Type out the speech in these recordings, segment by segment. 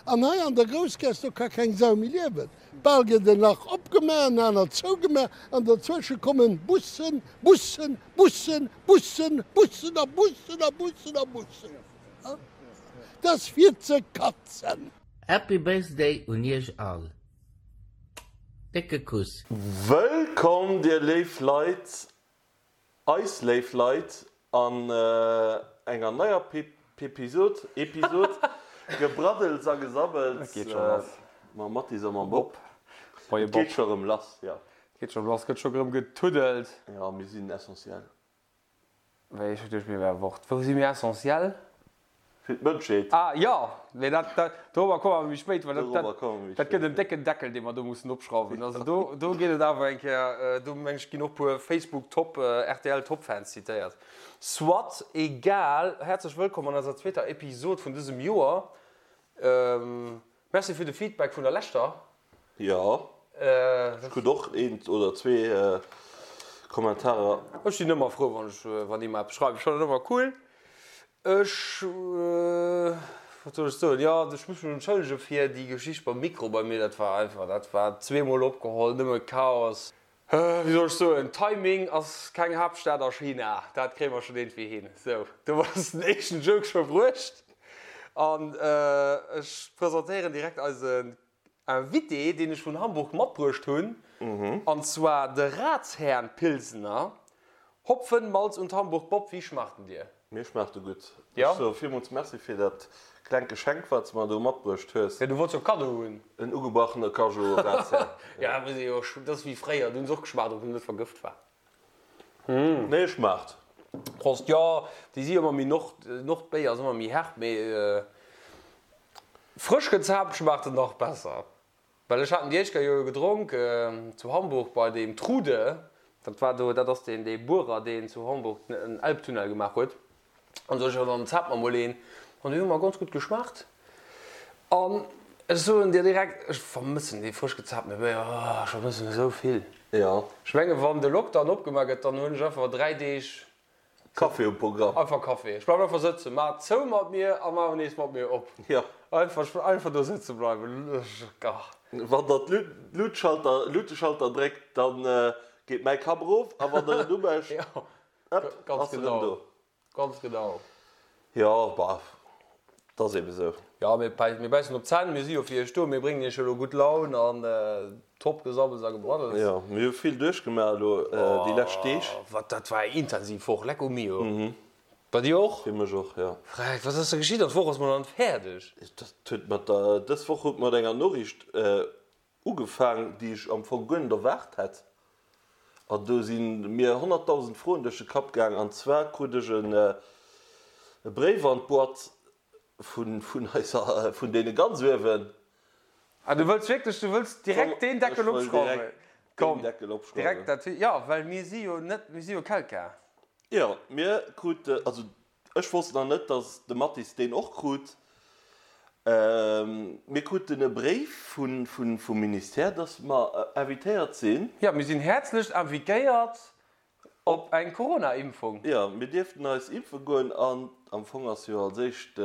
An hei an der Groussgaass, do ka keng Sau méi liewen. Bal gëtt en Lach opgemaach, en anert zougemaach, an derzwësche kommen Bussen, Bussen, Bussen, Bussen, Bussen a Bussen a Bussen a Bussen. Dat ass fir ze katzen. Happy Birthday un iech all. Décke Kuss. Wëllkomm dir léif Leit, eis léif Leit an enger neier Pepisod, Episod, Gebraddels a Gesabbels mam Mathis a mam Bob. Et geet scho rëm lass, jo. Et geet scho rëm lass, gëtt scho rëm getuddelt. Jo, mir sinn essentiell. Wéi, ech hu geduecht mir wäre Wort. Wou si mir essentiell? Fir d'Mënschheet. Ah jo, mee dat, dat, dorobber komme mer méi spéit, well dat, dat, dat gëtt en décken Deckel, dee mer do mussen opschrauwen. Also do, do geet et awer eng Kéier, do meng ech ginn och puer Facebook-Top, RTL-Top-Fans zitéiert. Soit, egal, häerzlech wëllkomm an eiser zweeter Episod vun dësem Joer. Merci fir de Feedback vun der leschter. Jo, ech krut och eent oder zwee Kommentarer. Ech sinn ëmmer frou wann ech wann ee mer eppes schreift. Ech fannen et ëmmer cool. Ech, wat soll ech soen, jo ech muss mech entschëllege fir déi Geschicht beim Mikro bei mir. Dat war einfach, dat war zweemol opgeholl, nëmme Chaos. Wéi soll ech soen, Timing ass keng Haaptstad a China, dat kréie mer schonn iergendwéi hin. Sou, do ass den éischten Joke scho bruecht. An ech presentéieren direkt eisen Invité, deen ech vun Hamburg matbruecht hunn, an zwar de Ratsherrn Pilsener. Hopfen, Malz und Hamburg Bob, wie schmacht en dir? Mir schmaacht e gutt. Ech soe villmools Merci fir dat klengt Geschenk, wat s de mer do matbruecht hues. Jo, du wollts jo e Kaddo hunn. En ugebrachene Cajou Razzia. Jo, dat muss ee jo, dat ass wéi fréier, do hunn se och geschmaacht, ob en net vergëft war. Nee, e schmaacht. Prost. Jo, déi si ëmmer méi nord, Nordbéier ass ëmmer méi herb, mee frësch gezaapt schmaacht en nach besser. Well ech haten déi éischt Kéier jo gedronk zu Hamburg bei deem Trude, dat war do, dat ass deen dee Buerer deen zu Hamburg den Elbtunnel gemaach huet, an sot ech, jo dann zaapt mer mol een, an déi hu mer ganz gutt geschmaacht an ech soen dir direkt, ech vermëssen dee frësch gezaaptene Béier, oh ech vermëssen esou vill. Jo. Ech menge wann de Lockdown opgemaach gëtt, dann hunn ech einfach 3 Deeg Café um Programm. Einfach Café. Ech bleiwen einfach sëtzen. Maach zou mat mir a maach nees mat mir op. Jo. Einfach, einfach do sëtze bleiwen. Ach. Wann der d'Luutschalter, Luuteschalter dréckt, dann geet mäi Kapp erof a wann der en umécht, ëpp, ass en erëm do. Ganz genau. Jo, bah, 't ass eben esou. Jo, mir bäissen op d'Zänn, mir si jo fir iech do, mir bréngen iech elo gutt Laun an top Gesabbels a Gebraddels. Jo, mir hu vill duerchgemaach elo déi lescht Deeg. Oh, wat, dat war eng intensiv Woch, lecko mio. Bei dir och? Fir mech och, jo. Freck, wat ass da geschitt? An d'Woch ass mol nach net fäerdeg. Dat huet mat der, dës Woch huet mat enger Noriicht ugefaang, déi ech am Fong guer net erwaart hätt. An do si mir 100.000 Froen duerch de Kapp gaang. An zwar krut ech e Bréif an d'Boîte vun, vun eiser, vun deene ganz uewen. Ah, du wëlls wierklech, du wëlls direkt deen Deckel Ech wëll opschrauwen? direkt deen Komm, Deckel opschrauwen. direkt dat, jo, well mir si jo net, mir si jo Quelqu'un. Jo, mir krute, also Ech wosst nach net, dass de Mathis deen och krut. Mir kruten e Bréif vum Ministère, dass mer invitéiert sinn. Jo, mir sinn häerzlechst invitéiert op eng Corona-Impfung. Jo, mir dierften eis impfe goen an am Fong ass jo als éischt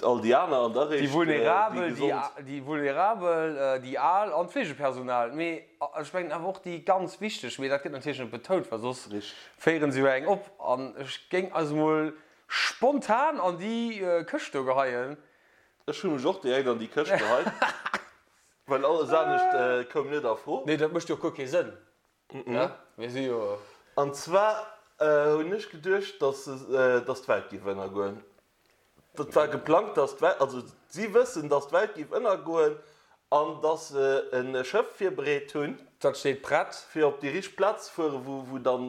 All déi aner an da réischt déi gesond. Déi Vulnerabel, déi Al an d'Fleegepersonal. Mee ech mengen awer och déi ganz wichteg, mee dat gëtt natierlech net betount, well soss féiere se jo eng op. An ech géing eis emol spontan an déi Këscht do geheien. Ech hu mech och direkt an déi Këscht geheit, well alles anescht koum net a Fro. Nee, dat mécht jo och guer kee Sënn. Mir si jo. An zwar hunn ech geduecht, dass d'Welt géif ënnergoen. Dat war geplangt, dass d'Welt, also si wëssen, dass d'Welt géif ënnergoen an dass se e Schëff virbereet hunn. Dat steet prett. Fir op déi richteg Plaz ze fueren, wou, wou dann,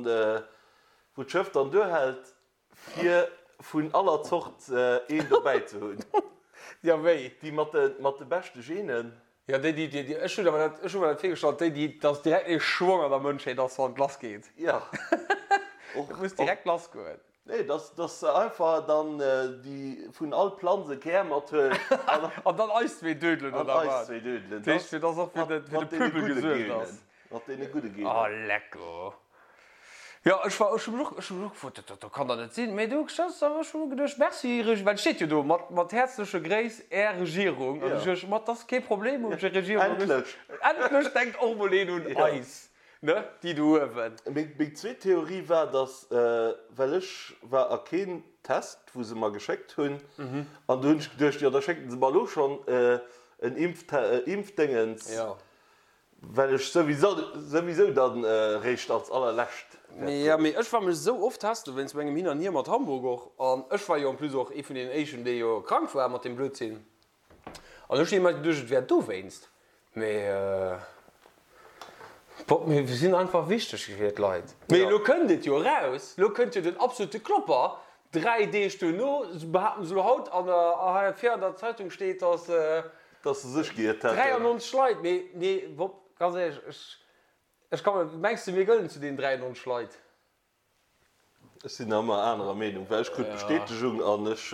wou d'Schëff dann duerhält, fir vun aller Zort een dobäi ze hunn. Ja, wéi? Déi mat de, mat de beschte Genen. Ja, déi, déi, déi, ech hunn awer dat, ech hu mer dat virgestallt, déi, déi, dass direkt ee Schwong an der Mënschheet ass, wann et lassgeet. Ja. Et muss direkt lassgoen. Nee, dass dass se einfach dann déi vun all Planz e Kär mathuelen an. An dann eis zwee dödelen, oder wat? An eis zwee dödelen. Dat heescht, fir dass och fir de Pöbel gesuergt ass. Mat deene gudde Genen. Oh, lecko. Jo, ech war, ech hu mech och, ech hu mech och gefrot, dat, dat kann dach net sinn. Mee du, ech hu geduecht, Merci, Reg, well et steet jo do, mat, mat häerzleche Gréiss, Är Regierung. An ech duecht, ma 't ass kee Problem, hu mech Regierung. Endlech! Endlech denkt och mol een un eis, ne, déi do uewen. Meng, meng zweet Theorie war, dass, well ech war a keen Test, wou se mer geschéckt hunn, an du hunn ech geduecht, jo da schécken se mer elo schonn en Impfte, Impfdéngens. Well ech souwisou dann réischt als allerlescht wäert goen. Jo, mee ech war mech esou oft testen wéinst mengem Hin an Hier mat Hamburg och. An ech war jo en plus och ee vun deenen éischten, dee jo krank war mat deem Blödsinn. An ech hunn ëmmer geduecht, et wär dowéinst. Mee bon, mir sinn einfach wichteg fir d'Leit. Mee elo kënnt et jo eraus, elo kënnt jo den absolute Klopper. 3 Deeg duerno behaapten se elo haut an der, hei vir an der Zeitung steet, dass. Dass se sech giiert hätten. 93 Leit, mee nee, Bob, ganz éierlech, ech, ech ka mer, mengs de mir gëllen zu deenen 93 Leit? Ech sinn nach ëmmer anerer Meenung, well ech krut d'Bestätegung an ech,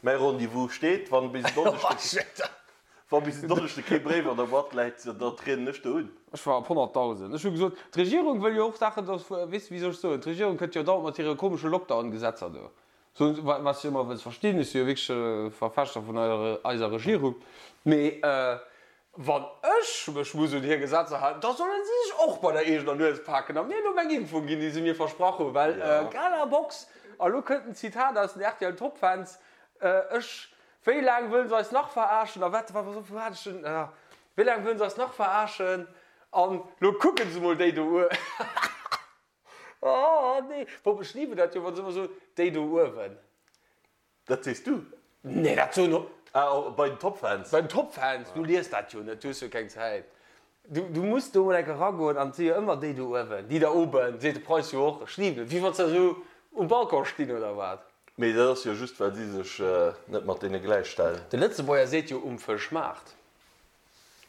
mäi Rendez-vous steet, wann bis en Donneschde, wa bis en Donneschde kee Bréif an der Boîte läit, da trieden ech do un. Ech war op 100.000. Ech hu gesot, d'Regierung wëll jo och Saachen, dass, weess de, wéi soll ech soen, d'Regierung kënnt jo dauernd mat hire komesche Lockdown-Gesetzer do. Soen se, wat ech ëmmer wëlls verstinn, ech si jo wierklech e Verfechter vun eiser Regierung, mee wann ech mech muss un hir Gesetzer halen, da solle si sech och bei der eegener Nues paken a mir elo meng Impfung ginn, déi se mir versprach hunn, well Gala Box, a lo kënnt en Zitat aus den rtl Top Fans, ech, wéi laang wëllen se eis nach verarschen a wat, wou hat ech den, wéi laang wëllen se eis nach verarschen an lo kucken se mol déi do u. Oh nee, Bob, ech liebe dat jo, wann se ëmmer soen, déi do uewen. Dat sees du? Nee, dat soen och. Ah, bei den Topfans. Bei den Topfans, du lies dat jo net, du hues jo keng Zäit. Du, du muss do mol enke ragoen an et si jo ëmmer déi do uewen, die da oben, seet de Preis jo och. Ech liben et, wéi wann se esou um Balcon stinn oder wat. Mee dat ass jo just, well si sech net mat deene gläichstellen. De Lëtzebuerger seet jo um Fëschmaart.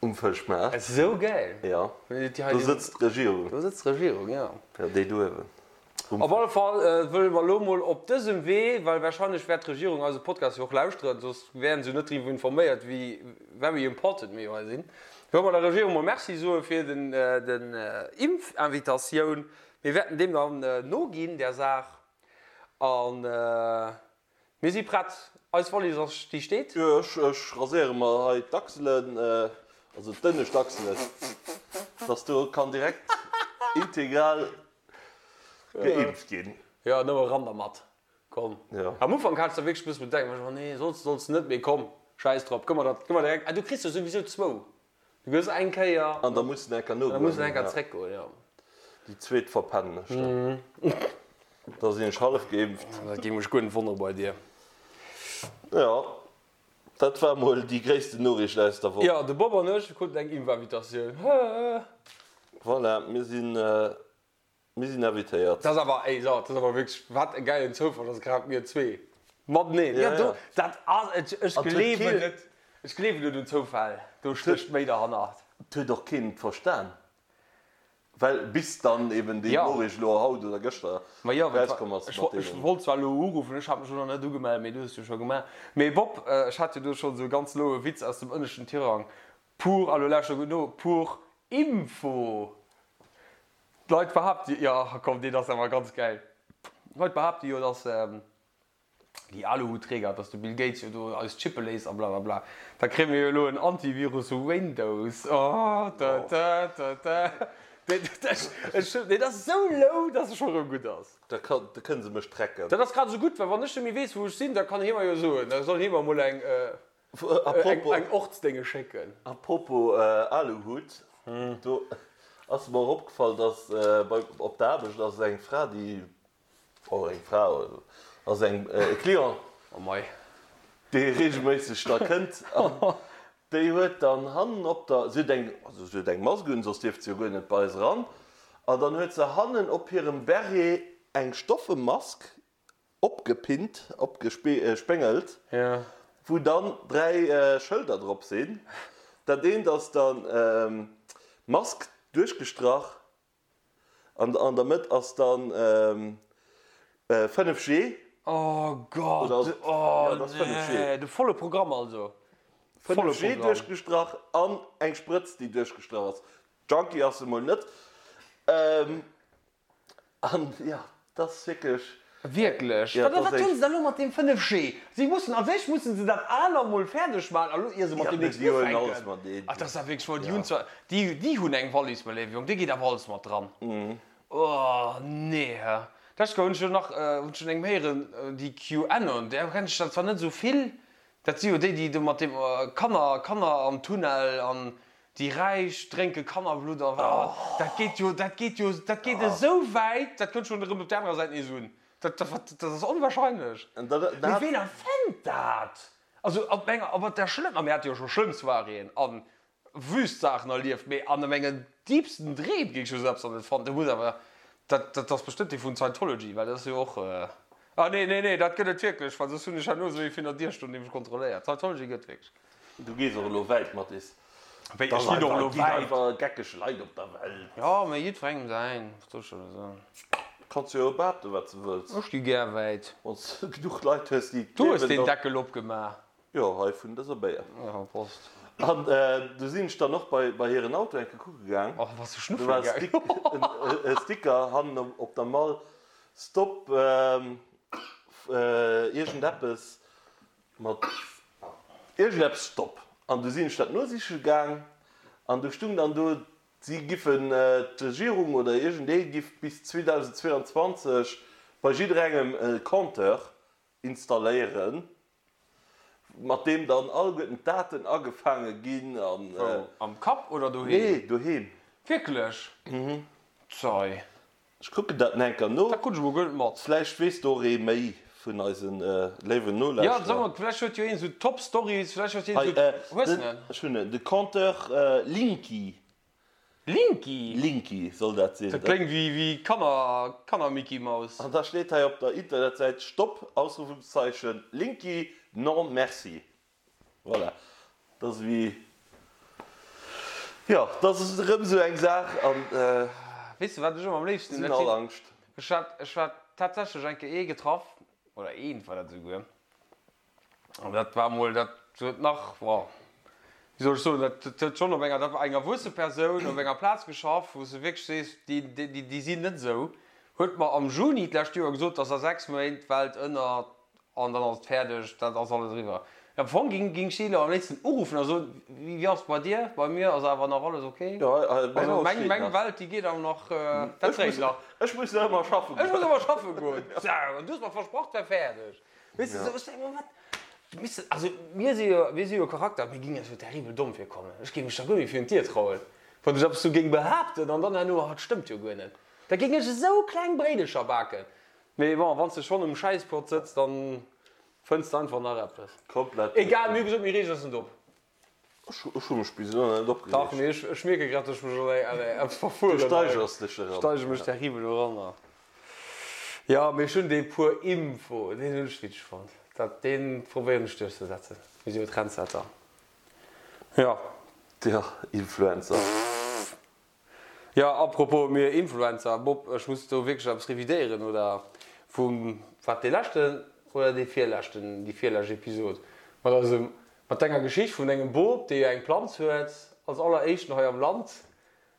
Um Fëschmaart. Esou gäil! Jo, do sëtzt d'Regierung. Do sëtzt d'Regierung, jo. Jo, déi do uewen. Op alle Fall wëlle mer elo mol op dësem Wee, well wahrscheinlech wäert d'Regierung eise Podcast jo och lauschteren, soss wären se jo net driwwer informéiert, wéi very important mir jo hei sinn, wëlle mer der Regierung mol Merci soe fir den den Impfinvitatioun. Mir wäerten deem dann noginn, där Saach. An. Mir si prett, eis Wallis ass, déi steet. Jo, ech raséiere mer hei d'Achselen, also d'ënnescht Achselen, dass do kann direkt integral geimpft ginn. Jo, nëmme ran dermat, komm. Jo. Am Ufank hat ech da wierklech e bësse Bedenken, war ech, oh nee, solls de, solls de net, mee komm, schäiss drop, gëmm mer dat, gëmm mer direkt, ah du kriss jo souwisou zwou. Du gëss eng Kéier. An da muss en enker nogoen. Da muss en enker zréckgoen, jo. Déi zweet verpennen ech dann. Da sinn ech hallef geimpft. Dat géing mech guer net wonnere bei dir. Jo, dat war mol déi gréissten Noriicht aus der Woch. Jo, de Bob an ech kruten eng Impfinvitatioun. Voilà, mir sinn. Mir sinn invitéiert. Dat ass awer, ey, so, dat ass awer wierklech, wat e gäilen Zoufall, dass grad mir zwee mateneen, ja, do, dat ass, ech, ech gleewen net, ech gleewen net un Zoufäll, do stécht méi derhannert. Et huet och keen et verstan, well bis dann eben déi Noriicht elo haut oder gëschter erauskomm ass mat deenen. Ech wollt zwar elo uruffen, ech hat mech elo nach net ugemellt, mee du hues jo scho gemaach. Mee Bob, ech hat jo do schonn esou e ganz loue Witz aus dem ënneschten Tirang, pour, a lo lauschter gutt no, pour info. D'Leit behaapte jo, komm deen ass awer ganz gäil, d'Leit behaapte jo, dass déi Aluhutträger, dass de Bill Gates jo do eis chippe léisst a blablabla. Da kréie mir jo elo en Antivirus Windows, oh tö tö tö tö. Deen ass esou low, dass e scho rëm gutt ass. Da kënne se mech tracken. Dat ass grad esou gutt, well wann ech net méi weess wou ech sinn, da kann hie mer jo soen, da soll hie mer emol eng. Eng Ortsdénge schécken. A propos Aluhut, do ass mer och opgefall, dass bei op der Aarbecht ass eng Fra, déi, oh eng Fra, ass eng e Client, dee reegelméisseg da kënnt an déi huet dann hannen op der, si huet eng, also si huet eng Mask un, soss dierft se jo guer net bei eis eran, an dann huet se hannen op hirem Beret eng stoffe Mask Opgepinnt, opgespéngelt, wou dann 3 Schëlder drop sinn. Dat eent ass dann Mask duerchgestrach an an der Mëtt ass dann 5G. Oh Gott, oh nee, de volle Programm also. 5G duerchgestrach an eng Sprëtz déi duerchgestrach ass. Junkie ass se mol net. An jo, dat ass wierklech. Wierklech? Ja, Wat dat ass wat hunn eng. se da elo mat deem 5G? Si mussen, als éischt mussen se dat aner mol fäerdeg maachen, a lo ier se mat Ja, deem mee nächsten déi huelen alles ufänken. mateneen. Ach, dat ass awer wierklech wohl, déi Ja. hunn zwar, déi, déi hunn eng Wallis, mäi léiwe Jong, do geet awer alles mat dran. Oh, nee, hä. D'lescht Kéier hunn ech jo nach, hunn ech vun engem héieren, déi QAnon, där kennt ech der zwar net esou vill, dat si jo déi, déi do mat deem Kanner, Kanner am Tunnel an Déi Räich drénke Kannerblutt a wat? Dat geet jo, dat geet jo, dat geet esou wäit, dat kënnt schonn erëm op där anerer Säit nees un. Dat, dat, dat ass onwahrscheinlech. Mee ween erfënnt dat? Also op enger, op der schlëmmer, mir hate jo scho schlëmm Soiréeën a wüst Saachen erlieft, mee an mengen deepsten Dreem géing ech jo esou eppes nach net fannen. Do muss awer, dat, dat ass bestëmmt dee vun Scientology, well dat ass jo och, ah nee, nee, nee, dat gëtt et wierklech, well soss hunn ech herno esou ee virun der Dier stoen, dee mech kontrolléiert. Scientology gëtt wierklech. Du gees och elo wäit, Mathis. Wéi, ech ginn och elo Et ginn wäit? einfach geckeg Leit op der Welt. Jo, mee jiddwerengem säin, wat soll ech der elo soen? Kanns jo behaapten, wat s de wëlls. Ech gi gär wäit. Wann s de genuch Leit hues, déi et Du hues gleewen, deen dann. Deckel opgemaach. Jo, hei vun dëser Béier. Jo, Prost. An du sinn ech dann och bei bei hiren Auto eng Kéier kucke gaang. Och, bass du Do schnuffele war e gaang? Stick, e Sticker hannen op der Mall, Stop iergendeppes. Mat iergendeppes Stopp. An du sinn ech dat nosiche gaang an du stung dann do, si giffen, d'Regierung oder iergendee giff bis 2022 bei jidderengem e Compteur installéieren, mat deem dann alleguerten d'Daten agefaange ginn an. Wou? Am Kapp oder doheem? Nee, doheem. Wierklech? Zei. Ech kucken dat enker no. Dat krut ech mol guer net mat. Vläicht weess do och ee méi vun eise léiwen Jo, Nolauschterer. sag mol, vläicht huet jo een esou top Stories, vläicht huet een Hei, esou. Hues den, de en? ech hunn en, de Compteur Linky. Linky? Linky soll dat sinn. Dat kléngt wéi, wéi Kanner, Kanner-Micky Maus. An da steet hei op der Internetsäit, Stopp, Ausrufungszeichen, Linky, non merci. Voilà, dat ass ewéi, jo, dat ass erëm esou eng Saach an Weess de wat ech ëmmer am léifsten sinn all Angscht. Ech hat, ech hat tatsächlech eng Kéier ee getraff, oder eent war dat esouguer, an dat war emol, dat huet nach, bon, wéi soll ech soen, dat huet schonn op enger, dat war eng erwuesse Persoun, op enger Plaz geschaff, wou s de wierklech sees, déi, déi, déi sinn net esou, huet mer am Juni d'lescht Joer gesot, dass a 6 Méint d'Welt ënner An dann ass et fäerdeg, dat ass alles eriwwer. Am Fong ging ging ech déi elo am léifsten uruffen a soen, Wéi ass et bei dir? Bei mir ass awer nach alles ok. Also meng meng Welt, déi geet awer nach, dat dréit nach. Ech muss nach ëmmer schaffen goen. Ech muss ëmmer schaffe goen. Sou, an du hues mer versprach, et wär fäerdeg. Weess de, sou, ech denke mer, wat, weess de, also mir si jo, mir si jo Charakter, mir ginn eis jo terribel domm virkommen. Ech géing mech da guer méi virun d'Dier trauen, wann ech eppes sou géing behaapten an dann herno, ah, et stëmmt jo guer net. Da géing ech esou kleng Bréidecher baken. Mee bon, wanns de schonn um Schäisspot sëtz, dann fënns de einfach nach eppes. Komplett. Egal, mir hu gesot, mir reegen eis net op. Ech hu mech bis elo net opgereegt. Dach, mee ech mierke grad, dass ech mech an eppes verfueren. Du steigers dech eran. Ech steigere mech terribel eran. Jo, mee ech hunn dee puer Info, deen hunn ech witzeg fonnt. Dat, deen probéieren ech duerchzesetzen. Mir si jo Trendsetter. Jo. Jo, Influencer. Jo, apropos mir Influencer, Bob, ech muss do wierklech eppes revidéieren, oder vum, wat dee leschten oder dee virleschten, déi virlescht Episod mat eisem, mat denger Geschicht vun dengem Bop, dee jo eng Planz huet, als alleréischten hei am Land,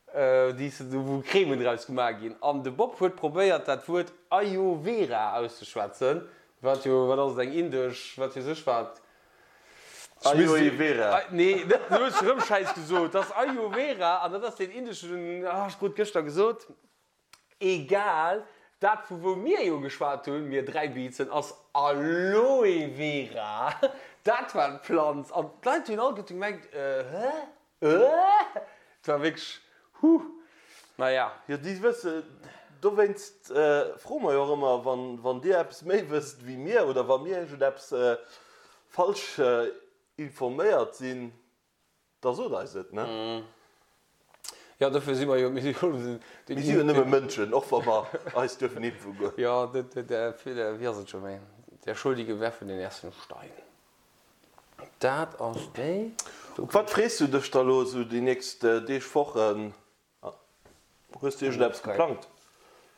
déi s de, wou Cremen draus gemaach ginn, an de Bob huet probéiert dat Wuert Ayo Vera auszeschwätzen, wat jo, wat ass et, eng indesch, wat weess ech wat, Ayoe Vera. Nee, net, du hues erëm Schäiss gesot. Dat ass Ayo Vera an dat ass deen indeschen, ah, ech krut gëschter gesot. Egal, dat vu wou mir jo geschwat hunn, mir 3 Biizen, ass Aloe Vera. Dat war d'Planz an d'Leit hunn alleguerte gemengt, hä? Et war wierklech, huh, naja. Jo, déi wësse, dowéinst froe mer jo och ëmmer, wann dir eppes méi wësst wéi mir oder wa mir iergendeppes falsch informéiert sinn, da sot eis et, ne? Jo, dofir si mer jo, mir si jo Mir si jo nëmme Mënschen, och wa mer eis duerfen impfe goen. Jo, wéi ass et scho méi, Der Schuldige werfe den ersten Stein. Dat ass déi. Op wat frees du dech da lo esou déi nächst Deeg, Wochen? Hues du iergendeppes geplangt?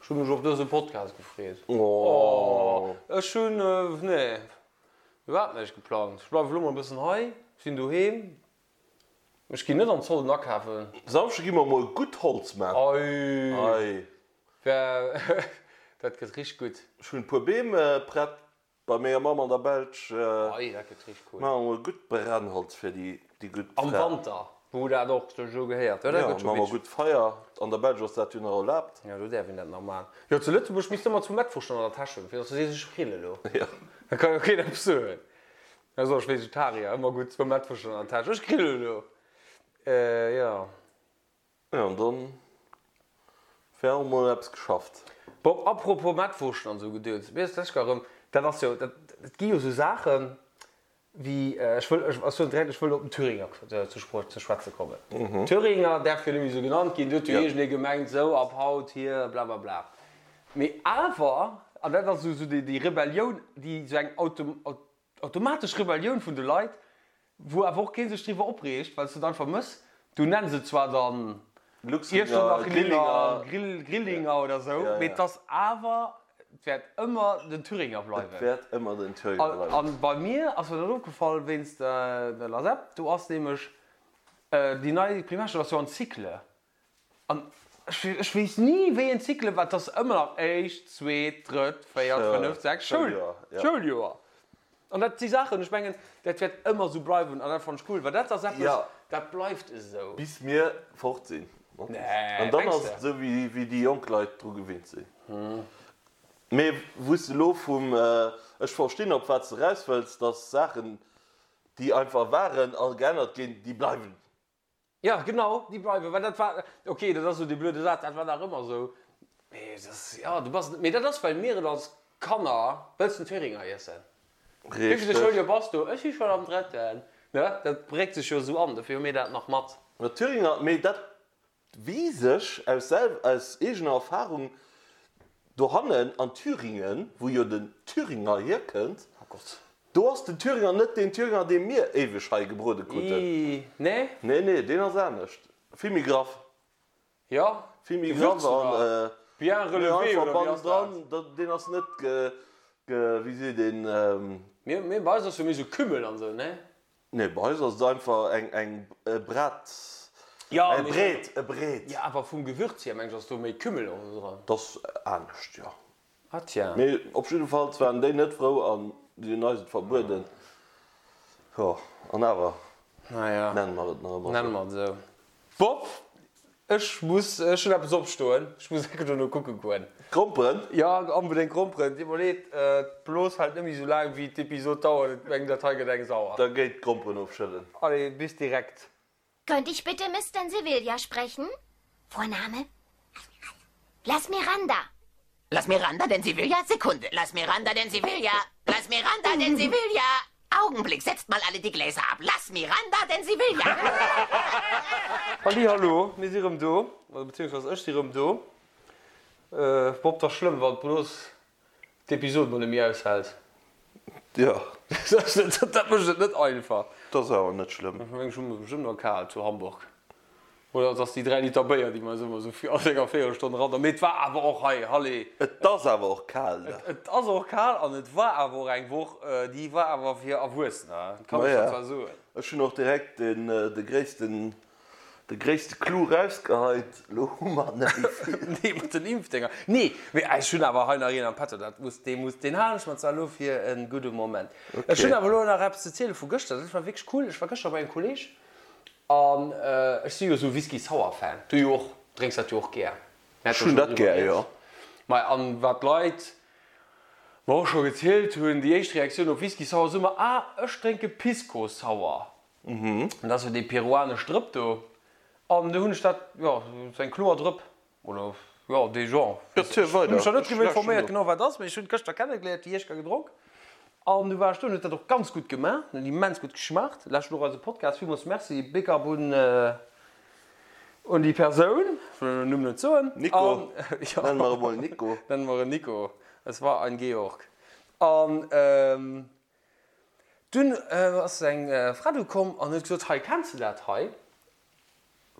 Ech hu mech op dëse Podcast gefreet. Oh, ech hunn, nee, iwwerhaapt näischt geplangt. Ech bleiwe lo mol e bëssen hei, sinn doheem. Ech ginn net an d'Solden akafen. Samschde gi mer mol gutt Holz man. Ei! Ei! Dat gëtt richteg gutt. Ech hunn e puer Beem prett bei menger Mamm an der Belsch. Ei, dat gëtt richteg cool. Maache mer gutt Brennholz fir déi gutt Fra. Am Wanter, wou dat och sech esou gehéiert. Jo, dat gëtt scho maache mer gutt Feier. An der Belsch ass dat jo nach erlaabt. Jo, do däerf een dat nach maachen. Jo, zu Lëtzebuerg misst ëmmer zu Mettwurscht an der Täsch hunn, fir datt du sees, ech grill elo. Jo. Da ka jo keen eppes soen. Da soll ech Vegetarier, ëmmer gutt zwou Mettwurscht an der Täsch, ech grill elo. Jo. Jo, an dann wär och mol eppes geschafft. Bob, apropos Mettwurschten an esou Gedöns, mir ass d'lescht Kéier erëm, dat ass jo, dat, et gi jo esou Saachen wéi, ech wëll, ech soen direkt, ech wëll op den Thüringer ze ze schwätze kommen. Thüringer däerf jo net méi esou genannt ginn, do huet jo iergendee gemengt, esou ab haut hier blablabla. Mee awer, an dat ass esou déi Rebellioun, déi esou eng automatesch Rebellioun vun de Leit, Wou awer och kee sech driwwer opreegt, well s de et einfach mëss. Du nenns et zwar dann Luxlinger, Grillinger, Grillinger oder sou, mee et ass awer, et wäert ëmmer den Thüringer bleiwen. Et wäert ëmmer den Thüringer bleiwen. An bei mir ass mir dat opgefall wéinst der LASEP, do ass nämlech déi nei Primärschoul ass jo an Cycle. An ech weess ni wéi een Cycle war, et ass ëmmer nach éischt, zweet, drëtt, véiert, fënneft, sechst Schouljoer. An dat si Saachen, ech mengen, dat wäert ëmmer esou bleiwen an dat fannen ech cool, well dat ass eppes, dat bleift esou. Bis mir fort sinn. An dann ass et esou, wéi déi jonk Leit dru gewinnt sinn. Mee wou s de elo vum, ech verstinn op wat s de eraus wëlls, datt Saachen, déi einfach waren a geännert ginn, déi bleiwen. Jo, genau, déi bleiwen, well dat war, ok, dat ass esou dee blöde Saz, dat war nach ëmmer esou, mee dat ass, jo, du bass, mee dat ass, well mir et als Kanner, wëlls den Thüringer iessen? Wéivilte Schouljoer bass du? Ech si schonn am drëtten, ne, dat prägt sech jo esou an, dofir hu mir dat nach mat. Ma Thüringer, mee dat Weess ech aus selw aus eegener Erfahrung, dohannen an Thüringen, wou jo den Thüringer hierkënnt, do ass den Thüringer net deen Thüringer, dee mir éiweg hei gebrode kruten. Nee? Nee, nee, deen ass anescht. Vill méi graff. Jo, Vill méi graff Gewürzt an oder bien relevé einfach oder wéi ass dat? bannendran, deen ass net ge, ge, wéi seet een? Mir, mir, bei eis ass jo méi sou Kümmel an sou, nee? Nee, bei eis ass et einfach eng eng e Brat, Ja, e mee Breet, e Breet. Jo, awer vum Gewürz hier meng ech ass do méi Kümmel och esou dran. Dat ass anescht, jo. Ah tiens. Mee op jiddefalls waren déi net frou an si hunn eis et verbueden. Jo, an awer Naja, nenne mer et nach ëmmer nenne esou. mer et esou. Bob, ech muss, ech hunn eppes opstoen, ech muss enke dono kucke goen. Gromperen? Jo, onbedéngt Gromperen. Deet mer leed, d'Blos hält net méi sou laang wéi d'Episod dauert, ech mengen dat hei gëtt eng sauer. Da géi d'Gromperen ofschëllen. Allez, bis direkt. Könnte ich bitte Mr. Sevilla sprechen? Vorname? Las Miranda. Las Miranda denn Sevilla? Sekunde. Las Miranda denn Sevilla? Las Miranda denn Sevilla? Augenblick, setzt mal alle die Gläser ab. Las Miranda denn Sevilla? Halli hallo, mir si rëm do, oder beziehungsweise ech si rëm do. Bob, 't ass schlëmm wann d'Blos d'Episod mol net méi aushält. Jo. Dat mécht et net einfach. Dat ass awer net schlëmm. Ech mengen, ech hu mer bestëmmt nach kal zu Hamburg. Oder et ass déi 3 Liter Béier, déi mer eis ëmmer esou fir all enger Véierelstonn eran. Mee et war awer och hei, Halle. Et ass awer och kal da. Et ass och kal an et war awer och eng Woch, déi war awer fir Erwuessener, dat kann ech der zwar soen. Ech hunn och direkt den, de gréissten, de gréisste Clou rausgeheit, elo hu mer net méi vill. Nee, mat den Impfdénger. Nee, mee ech hunn awer hei nach een am Petto, dat muss, dee muss, deen halen ech mer zwar elo fir e gudde Moment. Ech hunn awer elo nach eppes ze ziele vu gëschter, dat war wierklech cool. Ech war gëschter bei engem Kolleeg An ech si jo esou Whisky Sour Fan, du jo och, drénks dat jo och gär. Ech hunn dat gär, jo. Mei an wat d'Leit mer och scho gezielt hunn, déi éischt Reaktioun op Whisky Sour ass ëmmer, ah ech drénke Pisco Sour. Dat ass jo déi peruanesch Drëpp do. An du hunn ech dat, jo, sou eng kloer Drëpp, Oder jo, dee Genre. Erziel Ech hunn weider, mech nach net ech driwwer lauschten informéiert no. genau wat ass, mee ech hunn et gëschter kennegeléiert, déi Iechker gedronk an du war ech do an huet dat och ganz gutt gemaach, huet immens gutt geschmaacht. Lauschtert och eise Podcast, villmools Merci, big up un un déi Persoun, ech wëll den Numm net soen. Nico, An jo, nenne mer e mol Nico. Nenne mer en Nico, es war ein Georg. An dunn ass eng Fra do komm an huet gesot, hei kenns de dat hei?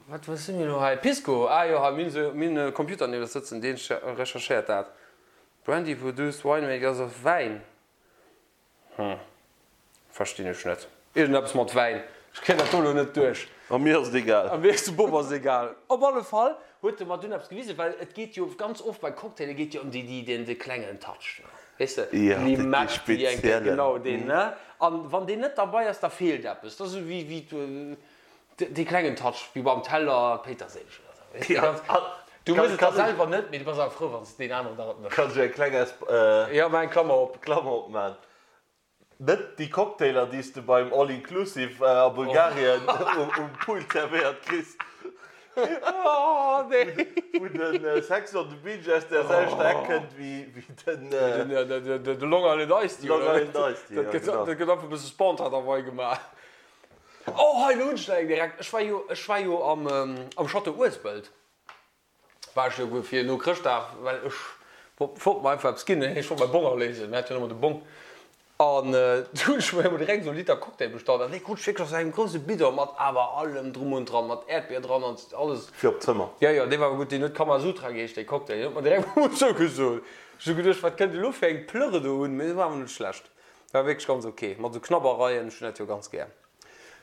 Wat wat si mir elo hei? Pisco, ah jo, hei, mir hunn esou, mir hunn e Computer nieft eis sëtzen, deen recherchéiert dat. Brandy produced winemaker ass of Wäin. Hm, verstinn ech net. Iergendeppes mat Wäin. Ech kréien dat do elo net duerch. A mir ass et egal. A mir, dem Bob ass et egal. Op alle Fall Huet e mer dunn eppes gewisen, well et geet jo ganz oft bei Cocktaile geet jo ëm déi, déi, deen, dee klengen Touch do, weess de, Ja, dee Limett, déi eng Kéier, speziellen. genau deen, ne? An wann deen net derbei ass, da feelt eppes. Dat ass esou wéi, wéi dee klengen Touch, wéi beim Teller Péiterséileg oder esou, weess de, Ja, ganz, an du kann, méchs et da kann ech, selwer net, mee du bass awer frou, wann s deen aneren der et mécht. kann ech eng kleng Esp, Ja, maach eng Klammer op. Klammer opman? Net déi Cocktailer, déi s de beim All Inclusive a Bulgarien um Pool zerwéiert kriss, wou de Sex on the Beach aus der selwechter Eck kënnt wéi den. De Long Island Iced Tea, Long oder? Island Iced Tea, ja, genau. Dat gëtt einfach e bësse spontan derwei gemaach. Oh, hei, elo hunn ech der eng direkt. Ech war jo, ech war jo am Château Uespelt. War ech jo fir no Chrëschtdag, well ech wollt mer einfach eppes ginn, ech wollt mäi Bong aléisen, mir hat jo nëmmer de Bong, an du hunn ech mer emol direkt esou e Liter Cocktail bestallt, an dee krut ech wierklech aus engem grousse Bidon mat awer allem drum und dran, mat Äerdbier dran an alles. Fir op d'Zëmmer? Jo, jo, dee war awer gutt, deen huet Kamasutra geheescht, dee Cocktail, deen huet mer direkt emol zougesot. Ech hu geduecht, wat kënnt elo fir eng Plërre do un, mee dee war awer net schlecht, war wierklech ganz ok, mat esou Knabbereien, ech hunn dat jo ganz gär.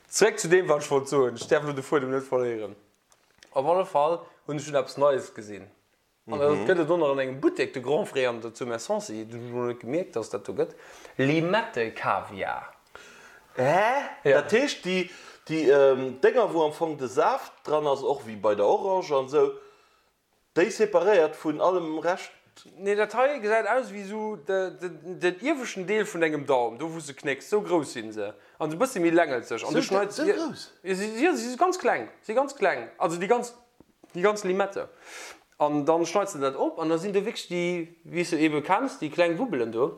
Zeréck zu deem, wat ech wollt soen, ech däerf elo de Fuedem net verléieren. Op alle Fall hunn ech dunn eppes Neies gesinn. An dat gëtt et och nach an engem Buttek, de Grand Frais an der zu Messancy. Dat hunn ech mol net gemierkt, dass et dat do gëtt. Limette-Kaviar. Hä? Dat heescht déi déi Dénger wou am Fong de Saaft dran ass, och wéi bei der Orange an esou, Déi separéiert vun allem Rescht. Nee, dat hei gesäit aus wéi sou den ieweschten Deel vun dengem Daum, do wou s de knécks. Sou grouss sinn se. An sou bëssi méi längelzeg. An du schneits. Sou grouss? Jo, si si ganz kleng. Si ganz kleng. Also déi ganz, déi ganz Limette. An dann schneits de dat op an da sinn do wierklech déi, wéi s de ebe kenns, déi kleng Wubbelen do.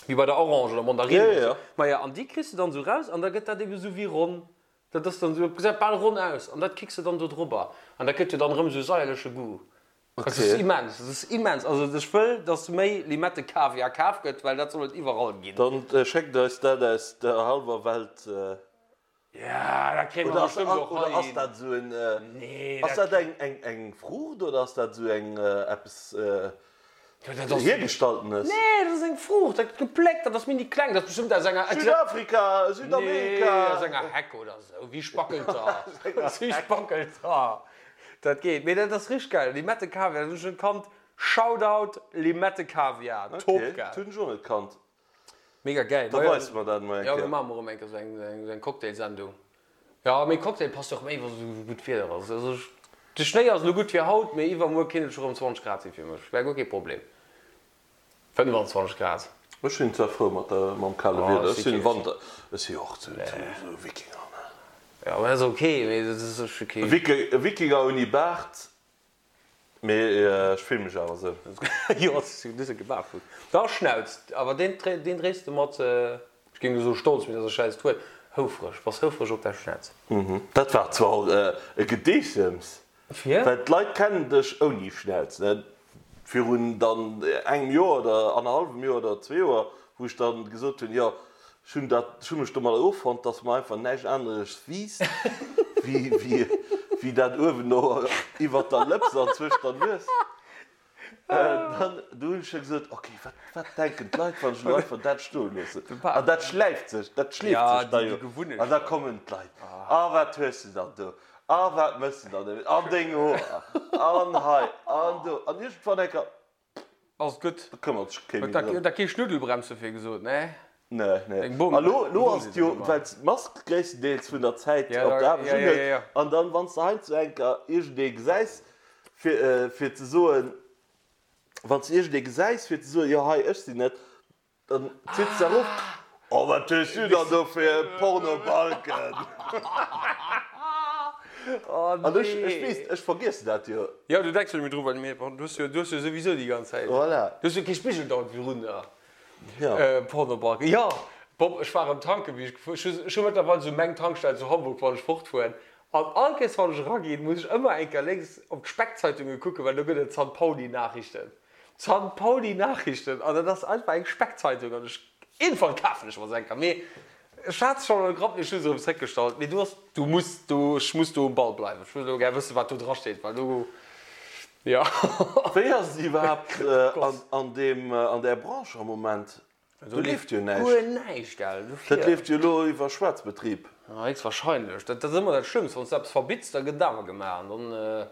Wéi bei der Orange oder Mandarine. Jo, jo. Maja, an déi kriss de dann sou raus an da gëtt dat ebe sou wéi ronn. Dat ass dann esou, gesäit bal ronn aus an dat kicks de dann do drobber an dat gëtt jo dann erëm esou saierleche Goût. Dat ass immens, dat ass immens. Also ech wëll, dass méi Limette-Kaviar kaf gëtt, well dat soll et iwwerall ginn. Dann schéckt eis dat aus der hallwer Welt. Ja, dat kréie mer bestëmmt och Oder hei ass hin. dat esou en, Nee, ass dat dat eng, eng, eng Fruucht oder ass dat esou eng eppes Jo, dat ass. Hiergestalltenes? Nee, dat ass eng Fruucht, dat gëtt gepléckt, dat ass mini kleng, dat ass bestëmmt aus enger. Südafrika, Südamerika. Nee, aus enger Heck oder esou, wéi Spackelter. Wéi Spackelter. Dat geet. Mee dat ass richteg geil. Limette Kaviar, dat hunn ech net kannt. Shoutout Limette Kaviar, top Okay, geil. dat hunn ech och net kannt. Mega gäil. Da weis mer dat emol eng Jo, mir Kéier. maache mol erëm eng Kéier esou eng Cocktailsendung. Jo, mee Cocktail passt och méi wa sou gutt Wieder ass. Also ech, de Schnéi ass elo gutt fir haut, mee iwwermuer kéint et scho rëm 20 Grad si fir mech. Wär guer kee Problem. 25 Grad. Ech sinn zwar frou mat der, mam kale Wieder. Ech sinn Wanter, ech si jo och sou sou Wikinger, ne? Jo, dat ass ok, mee dat ass ech ok. Wikinger ouni Baart. Mee ech fillen mech awer sou. Jo, du hues e gebarfutt. Da Schnauz, awer deen deen dréis de mat, ech géing elo soe stolz, mee dat ass e schäiss Wuert, houfreg, bass houfreg op däi Schnauz. Dat war zwar och e Gedeessems, Fir? well d'Leit kennen dech ouni Schnauz, ne? Virun dann engem Joer oder annerhallwem Joer oder zwee Joer, wou ech dann gesot hunn, jo, Ech hunn dat, ech hu mech domadder offonnt, dass mer einfach näischt anereges wiisst, wéi, wéi, wéi dat uewen do iwwert der Lëps an zwëscht der Nues. Dann, du hunn ech jo gesot, ok, wat, wat denken d'Leit, wann ech elo einfach dat stoe loossen? An dat schläift sech, dat schleeft sech da jo. An da kommen d'Leit, A wat hues de dann do? A wat méchs de dann domat? An deng Hoer? An hei? An do? An iergendwann enker, Ass gutt. Da këmmert sech kee méi Huet drëm. der kee Schnuddelbremse fir gesot, ne? Nee, nee. Eng Bom. A lo, lo Eng ass et jo, Bom. well s d'Mask gréisstendeels vun der Zäit Ja, op da, der Aarbecht ja, ja, unhues, ja, ja. an dann, wann s de heiansdo enker iergendee gesäis, fir, fir ze soen, wann s de iergendee gesäis, fir ze soen, jo hei, ech sinn et, Dann zitt se erof, Oh, wat hues du dann do fir e Pornobalken? An ech, ech weess, ech vergiessen dat jo. Jo, du denks jo net méi dru, well mir, du hues jo, du hues jo souwisou déi ganz Zäit, Voilà. du hues jo kee Spigel dauernd virun der. Jo. Pornobalken, jo. Bob, ech war erëm tanken, wéi ech gefuer, ech hu, ech hu mëttlerweil esou meng Tankstell zu Hamburg, wann ech fortfueren. An all Kéiers, wann ech eraginn, muss ech ëmmer eng Kéier lénks op d'Speckzeitunge kucken, well do gëtt et San-Pauli-Nachrichten. D'San Pauli Nachrichten, an dat ass einfach eng Speckzeitung, an ech, iergendwann kafen ech mer se eng Kéier, mee ech hat se schonn an de Grapp, mee ech hu se erëm zréckgestallt, mee du ass, du muss do, ech muss do um Ball bleiwen, ech wëll elo gär wëssen, wat do dra steet, well do, jo. Wéi ass et iwwerhaapt an deem, an där Branche am Moment? Do leeft jo näischt. Guer näischt, gell? Dofir. Dat leeft jo elo iwwer Schwaarzbetrib. Ja, héchstwahrscheinlech. Dat ass ëmmer dat Schlëmmst, wann s de eppes verbitts, da gëtt et awer gemaach an dann.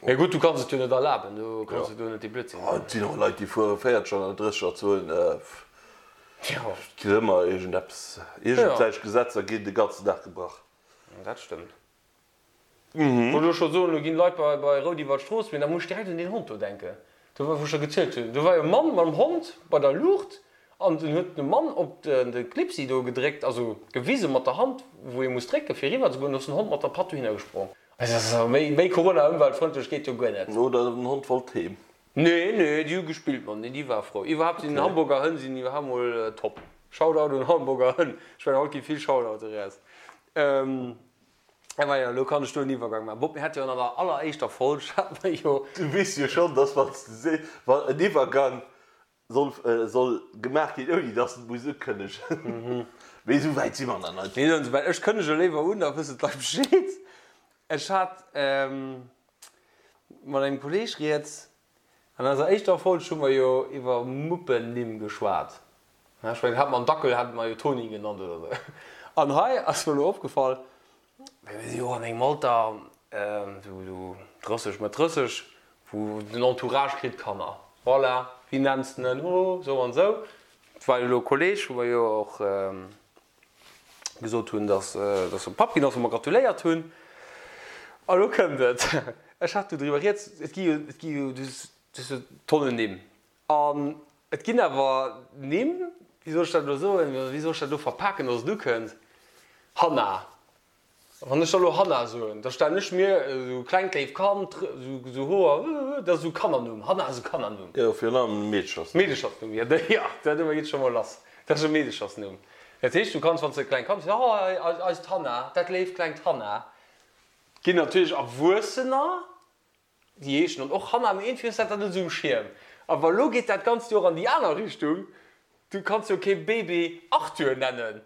Mee gutt, du kanns et jo net erlaben, du kanns jo do net dee Blödsinn maachen. Et sinn och Leit, déi fuere 40er an 30er Zonen. Et gëtt ëmmer iergendeppes, iergendwelch Gesetzer ginn de ganzen Dag gebrach. Dat stëmmt. Wollt elo scho soen, elo ginn Leit bei bei Rout iwwer d'Strooss, mee da muss ech direkt un deen Hond do denken, do wou ech der gezielt hunn. Do war jo e Mann mam Hond bei der Luucht an den huet de Mann op de Clipsi do gedréckt, also gewise mat der Hand, wou ee muss drécke fir eriwwer ze goen, do ass den Hond mat der Patt dohinner gesprong. Also méi méi Corona-ëmweltfrëndlech geet jo guer net. Oder den Hond wollt heem. Nee, nee, déi hu gespillt mat, nee, déi war frou. Iwwerhaapt sinn Hamburger Hënn sinn iwwerhaapt mol top. Shoutout un Hamburger Hënn. Ech mengen haut gi vill Shoutoute raus. A majo, elo kann ech do en Iwwergang maachen. Bob, mir hate jo an der alleréischter Folg, hate mer jo. Du weess jo schonn, dass wann s de sees, wann en Iwwergang soll, soll gemaach ginn, ouni dass en muss ukënnegen. Mee esou wäit si mer nach net. Mir sinn esou wäit. Ech kënnege léiwer un, da wëssen d'Leit Bescheed. Ech hat mat engem Kolleeg rieds. An eiser éischter Folg hu mer jo iwwer Muppennimm geschwat. Ech mengen, hat mer en Dackel, hate mer jo Toni genannt oder esou. An hei ass mer elo opgefall, well mir si jo och an engem Alter, esou 30, Mëtt 30, wou den Entourage kritt Kanner. Voilà, wéi nenns de en? Oh, esou an esou. Et war jo elo e Kolleg, wou mer jo och gesot hunn, dass dass e Papp ginn ass, wou mer gratuléiert hunn. A lo kënnt et, ech hat do driwwer rieds, et gi jo, et gi jo, du hues jo Tonnen Nimm. An et ginn awer Nimm, wéi soll ech dat elo soen, wéi soll ech dat elo verpaken, dass et ukënnt, Hanna. Wann ech da lo Hanna soen, da stellen ech mir esou klengt léif Kand, esou Hoer, dat ass esou Kannernumm, Hanna ass e Kannernumm. Jo, virun allem e Meedechersnumm. Meedechersnumm, jo, jo, dat geet scho mol lass, dat ass e Meedechersnumm. Dat heescht, du kanns, wann s de e klengt Kand hues, oh, eist Hanna, dat léift klengt Hanna. Ginn natierlech Erwuessener, déi heeschen dann och Hanna, mee iergendwéi hues dat dann net esou um Schierm. Awer elo geet dat Ganzt jo och an déi aner Richtung, du kanns jo kee Baby Arthur nennen.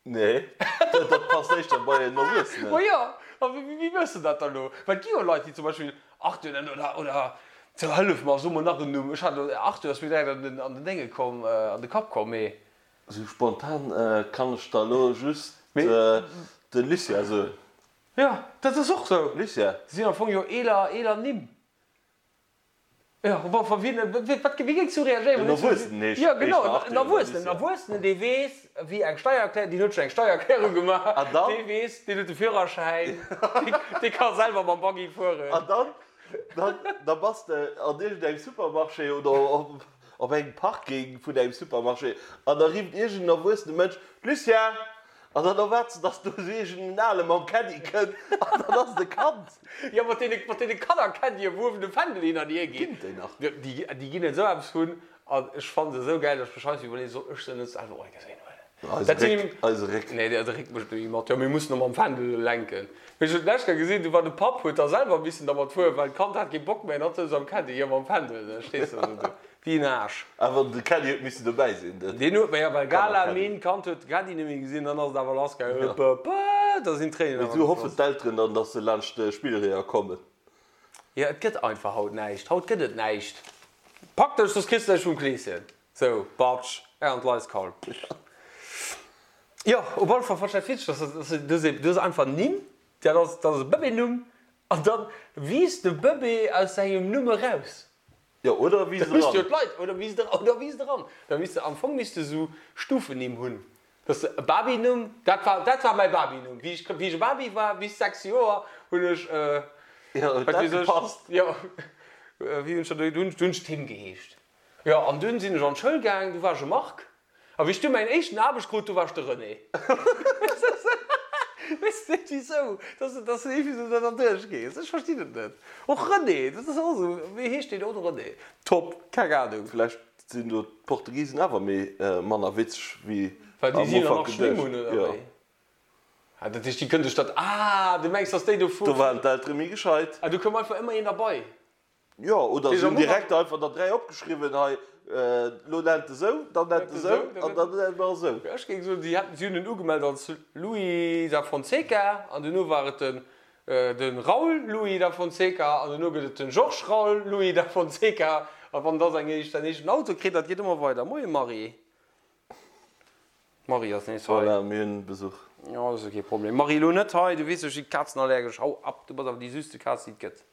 Nee, dat passt éischter bei en Erwuessenen. Ma jo, a wéi wëss de dat dann elo? Well et gi jo Leit, déi zum Beispill Arthur nennen oder, oder, so hëllef mer, so mol nach en Numm. Ech hat elo, Arthur ass mir direkt an den, an den Dénge komm, an de Kapp komm, mee. Esou spontan kann ech der elo just de Lucien soen. Jo, dat ass och esou. Lucien. Dat sinn am Fong jo eeler, eeler Nimm. Jo, bon, wa wien, wat, wéi géings du reagéieren, En Erwuessenen heescht Jo, genau, éischter en Arthur oder Erwuessenen, en Lucien. Erwuessenen, dee weess, wéi eng Steiererklärung, deen huet schonn eng Steiererklärung gemaach, An dann? dee weess, deen huet de Führerschäin, dee, dee ka selwer mam Buggy fueren. An dann, dann, da bass de an iergendengem Supermarché oder op, op engem Parking vun engem Supermarché an da rifft iergend en erwuessene Mënsch, Lucien! An dann erwaarts de, dass do esou iergend en Ale mam Caddy kënnt an dann ass et e Kand. Jo, mat deene, mat deene Kanner-Caddyen, wou uewen de Fändel hin an hier geet. Ginn et déi nach? Jo, déi, déi ginn et esou eppes vun. An ech fannen se esou gäil, dass ech mech heiansdo iwwerleeën, soll ech se net selwer och eng Kéier huelen? Eise Dat sinn Réck, eise Réck. Nee, de Réck mécht net méi mat. Jo, mir mussen och mam Fändel lenken. Mee ech hunn d'lescht Kéier gesinn, du war de Papp, huet da selwer missen dermat fueren, well d'Kand hat kee Bock méi an hatt souz am Caddy, jo, mam Fändel, da stees de esou do. Wéi en Aarsch. Awer de Caddy huet missen dobäi sinn, de Deen huet, ma jo, well Gala, Kanner-Caddy. Min, Kand huet de Caddy net méi gesinn, dann ass et awer lass gaangen, hëpp, hëpp, hëpp, da sinn d'Tréinen Mee awer sou hoffen gefloss. d'Elteren dann, dass se laanscht de Spillreeër kommen. Jo, et gëtt einfach haut näischt, haut gëtt et näischt. Pak dech, soss kriss de näischt vum Kleeschen. Sou, batsch, an d'Leiskal. Jo, op alle Fall fannen ech dat witzeg, dass dass du hues du hues einfach Nimm, dat ass dat ass e Bëbeenumm, an dann wiisst de Bëbee aus sengem Numm eraus. Jo, oder wiisst Da misst jo eran. d'Leit, oder wiisst eran, oder wiisst eran. Da misst de, am Fong misst de sou Stufennimm hunn, dass de e Babynumm, dat war, dat war mäi Babynumm, wéi ech, wéi ech e Baby war, bis 6 Joer, hunn ech, Jo, huet wat dat weess ech, gepasst? jo, wéi hunn ech dat, du hunn ech Tim geheescht. Jo, an dunn sinn ech an d'Schoul gaang, du war ech e Marc. A wéi ech du mäin éischten Aarbecht krut, du war ech de René. Weess net wisou, dass de dass de iergendwéi sou da derduerch gees. Ech verstinn et net. Och René, dat ass och esou, wéi heescht deen? Oh, de René. Top, keng Ahnung. Vläicht sinn do d'Portugisen awer méi manner witzeg wéi Well déi am si Ufank nach Schlimm geduecht. hunn, oder Jo. wéi? Ah, dat heescht, déi kënne sech dat, ah, du mengs, dass déi do vu. Do waren d'Eltere méi gescheit. Ah, do koum einfach ëmmer een derbei. Jo, oder se hunn direkt einfach der 3 opgeschriwwen, hei, lo nennt e sou, dann nennt e sou an dann nennt mer esou. Ech géing soen, si hätten, si hunn en ugemellt als Louis da Fonseca an duerno war et den de Raul Louis da Fonseca an duerno gëtt et den Georges Raul Louis da Fonseca a wann da säin éischten Auto kritt, dat geet ëmmer weider. Moie Marie. D'Marie ass nees hei. Voilà, mir hunn Besuch. Jo, dat ass jo kee Problem. Marie, elo net hei, du weess jo, ech si kazenallergesch. Hau ab, du bass awer déi süsste Kaz, déi et gëtt.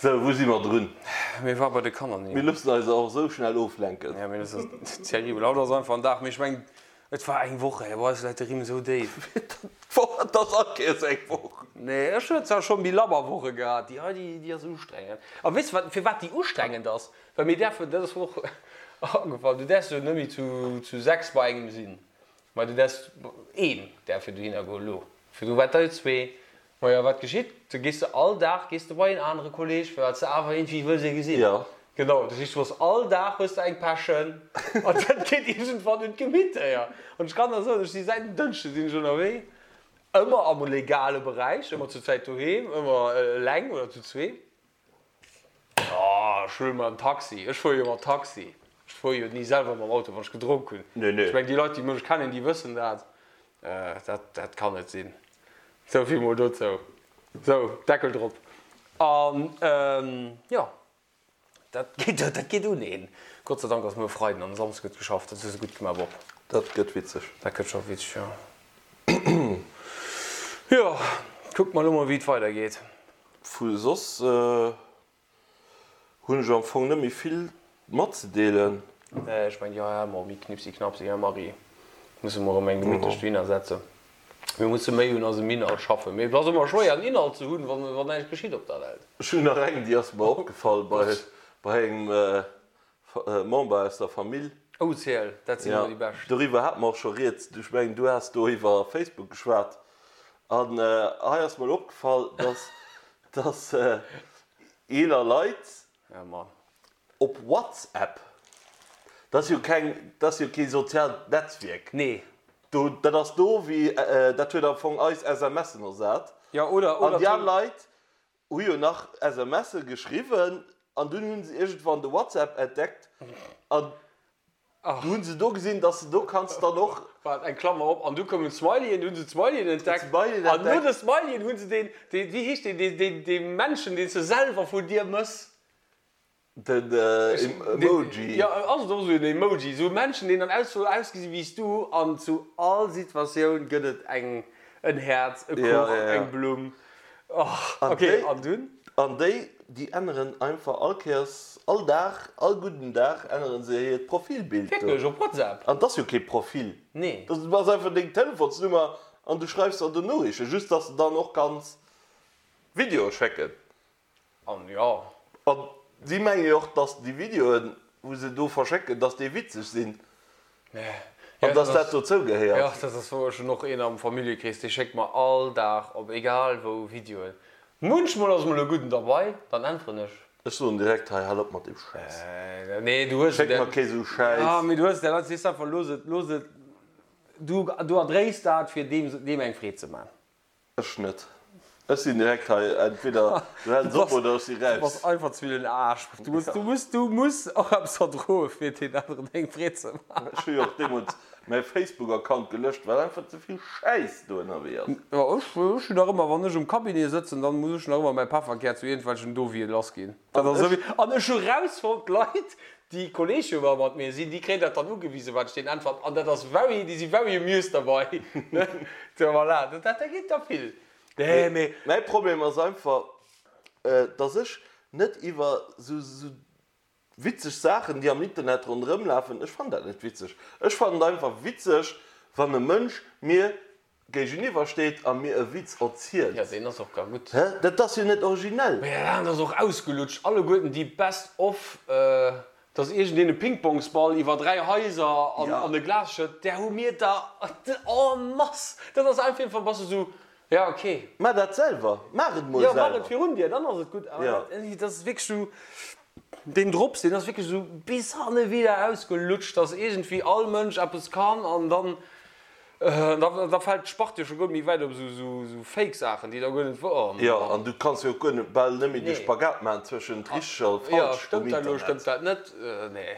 Sou, wou si mer drun? Mir ware bei de Kanner, nee. Mir loossen eis och esou schnell oflenken. Ja, mee dat ass terribel. Haut ass einfach en Dag, mee ech mengen, et war eng Woch, ey, bei eis läit de Rimm esou déif. D'Woch, et ass all Kéiers eng Woch. Nee, ech hunn zwar scho méi labber Woche gehat, déi hei, déi, déi ass ustrengend. A weess de wat, firwat déi ustrengend ass? Well mir däerfen, dat ass mer och agefall, du däerfs jo net méi zu, zu 6 bei engem sinn, mä du däerfs, een däerf jo dohinner goen elo, virdru waart der jo zwee. Majo, wat geschitt? Du gees de all Dag gees de bei een anere Kolleg, well s de awer iergendwéi wëlls ee gesinn. Jo. Genau, dat heescht, du hues all Dag hues de eng Pechen an dat geet iergendwann un d'Gemitter. An ech kann der soen, ech si säit en Dënschde sinn ech ënnerwee, ëmmer am legale Beräich, ëmmer zur Zäit doheem, ëmmer eleng oder zu zwee. Oh, ech huele mer en Taxi. Ech fuere jo mat Taxi. Ech fuere jo ni selwer mam Auto, wann ech gedronk hunn. Nee, nee. Ech mengen, déi Leit, déi mech kennen, déi wëssen dat. Dat, dat kann net sinn. Sou vill mol dozou. Sou, Deckel drop. An, jo, dat geet, dat geet un een. Gott sei Dank ass muer Freiden an e Samsde gëtt geschafft. Dat hues de gutt gemaach, Bob. Dat gëtt witzeg. Dat gëtt scho witzeg, jo. Jo, kucke mer elo mol, wéi et weidergeet. Vu soss hunn ech am Fong net méi vill matzedeelen. Nee, ech mengen, jo, jo, méi Knipsi Knapsi, Här Marie, musse mer erëm eng gemittlech dohinner setzen. Mir musse méi un eisem Inhalt schaffen. Mee et ass ëmmer schwéier, en Inhalt ze hunn, wann näischt geschitt op der Welt. Ech hunn nach eng, déi ass mer opgefall bei engem Member aus der Famill. Oh, ziel, dat sinn ëmmer déi bescht. Doriwwer hate mer och scho rieds. Ech mengen, du has do iwwer Facebook geschwat. An hei ass mer elo opgefall, dass, dass eeler Leit op WhatsApp, dat ass jo keng, dat ass jo kee soziaalt Netzwierk. Nee. Do, dat ass do wéi, dat huet am Fong eis SMSen ersat. Jo, oder, oder. An déi al Leit Hu jo nach SMSe geschriwwen an dunn hunn se iergendwann de WhatsApp entdeckt an du hunn se do gesinn, dass de do kanns dann och. Waart, eng Klammer op, an du koumen d'Smileyen, du hunn se d'Smileyen entdeckt an no de Smileyen hunn se deen, deen, wéi heescht deen, deen, dee Männchen, deen s de selwer vun dir mëss. Den Emoji. Jo, ass et och esou en Emoji, esou e Männchen, deen dann aus soll ausgesi wéi s du, an zu all Situatioun gëtt et eng, en Häerz, e Kuch, eng Blumm. Och, ok, an dunn? An déi, déi änneren einfach all Kéiers, all Dag, all gudden Dag änneren se hiert Profilbild do. Wierklech, op WhatsApp? An 't ass jo kee Profil. Nee. Dat ass einfach deng Telefonsnummer an du schreifs der do Noriichten, just dass de dann och kanns Videoe schécken. An jo. An si menge jo och, dass déi Videoen, wou se do verschécken, dass déi witzeg sinn an dass dat dozou gehéiert. Jo, dat ass wouer. Ech hunn och een am Familljekrees, dee schéckt mer all Dag op egal wou Videoen. Munchmol ass mol e gudden derbei, dann äntweren ech. Ech soen direkt, hei, hal op mat deem Schäiss. Nee, du hues. Schéck mer kee sou Schäiss. Jo, mee du hues där Leit, sees einfach, looss et, looss et, du, du erdréis dat, fir deem, deem eng Freed ze man. Ech net. Ech sinn direkt hei, entweder du häls op oder ech si Du raus. bass einfach ze vill en Aarsch. Du muss, du muss, du muss och eppes verdroe fir deen aneren eng Freed ze maachen. Ech hu jo och deemools mäi Facebook-Account gelöscht, well einfach ze vill Schäiss do ënnerwee ass. Jo, ech, ech hunn nach ëmmer, wann ech um Cabinet sëtzen, dann muss ech nach ëmmer mäi Pefferkär zu iergendwelchen Dovie lassginn. Dat ass esou wéi, an ech hu rausfonnt, d'Leit, Déi Kolleege wa mat mir sinn, déi kréien dat dann ugewisen, wat ech deenen äntweren. An dat ass very, déi si very amused derbei. So, voilà, dat, dat geet da vill. Nee, mee. Mäi Problem ass einfach, dass ech net iwwer sou, sou witzeg Saachen, déi am Internet ronderëm lafen, ech fannen dat net witzeg. Ech fannen et einfach witzeg, wann e Mënsch mir géigeniwwer steet a mir e Witz erzielt. Jo, deen ass och gar gutt. Hä? Dat ass jo net originell. Mee dat ass och ausgelutscht. Alleguerten déi Best of, dass iergendeen e Pingpongsball iwwer 3 Haiser an e Glas schëtt, där hu mir der en masse. Dat ass einfach, iergendwann bass de sou, ja ok. Maach dat selwer. Maach et mol selwer. Jo, maach et virun dir, dann ass et gutt. Awer dat ass wierklech sou, deen Drops, deen ass wierklech esou bis hanne wieder ausgelutscht, dass iergendwéi all Mënsch eppes kann an dann, da fält d'Spart jo scho guer net méi wäit op esou fake Saachen, déi da guer net wouer. Jo, an du kanns jo och guer net, bal net méi de Spagat maachen zwëschent richteg a falsch um Internet. Jo, stëmmt dat elo, stëmmt dat net? Nee,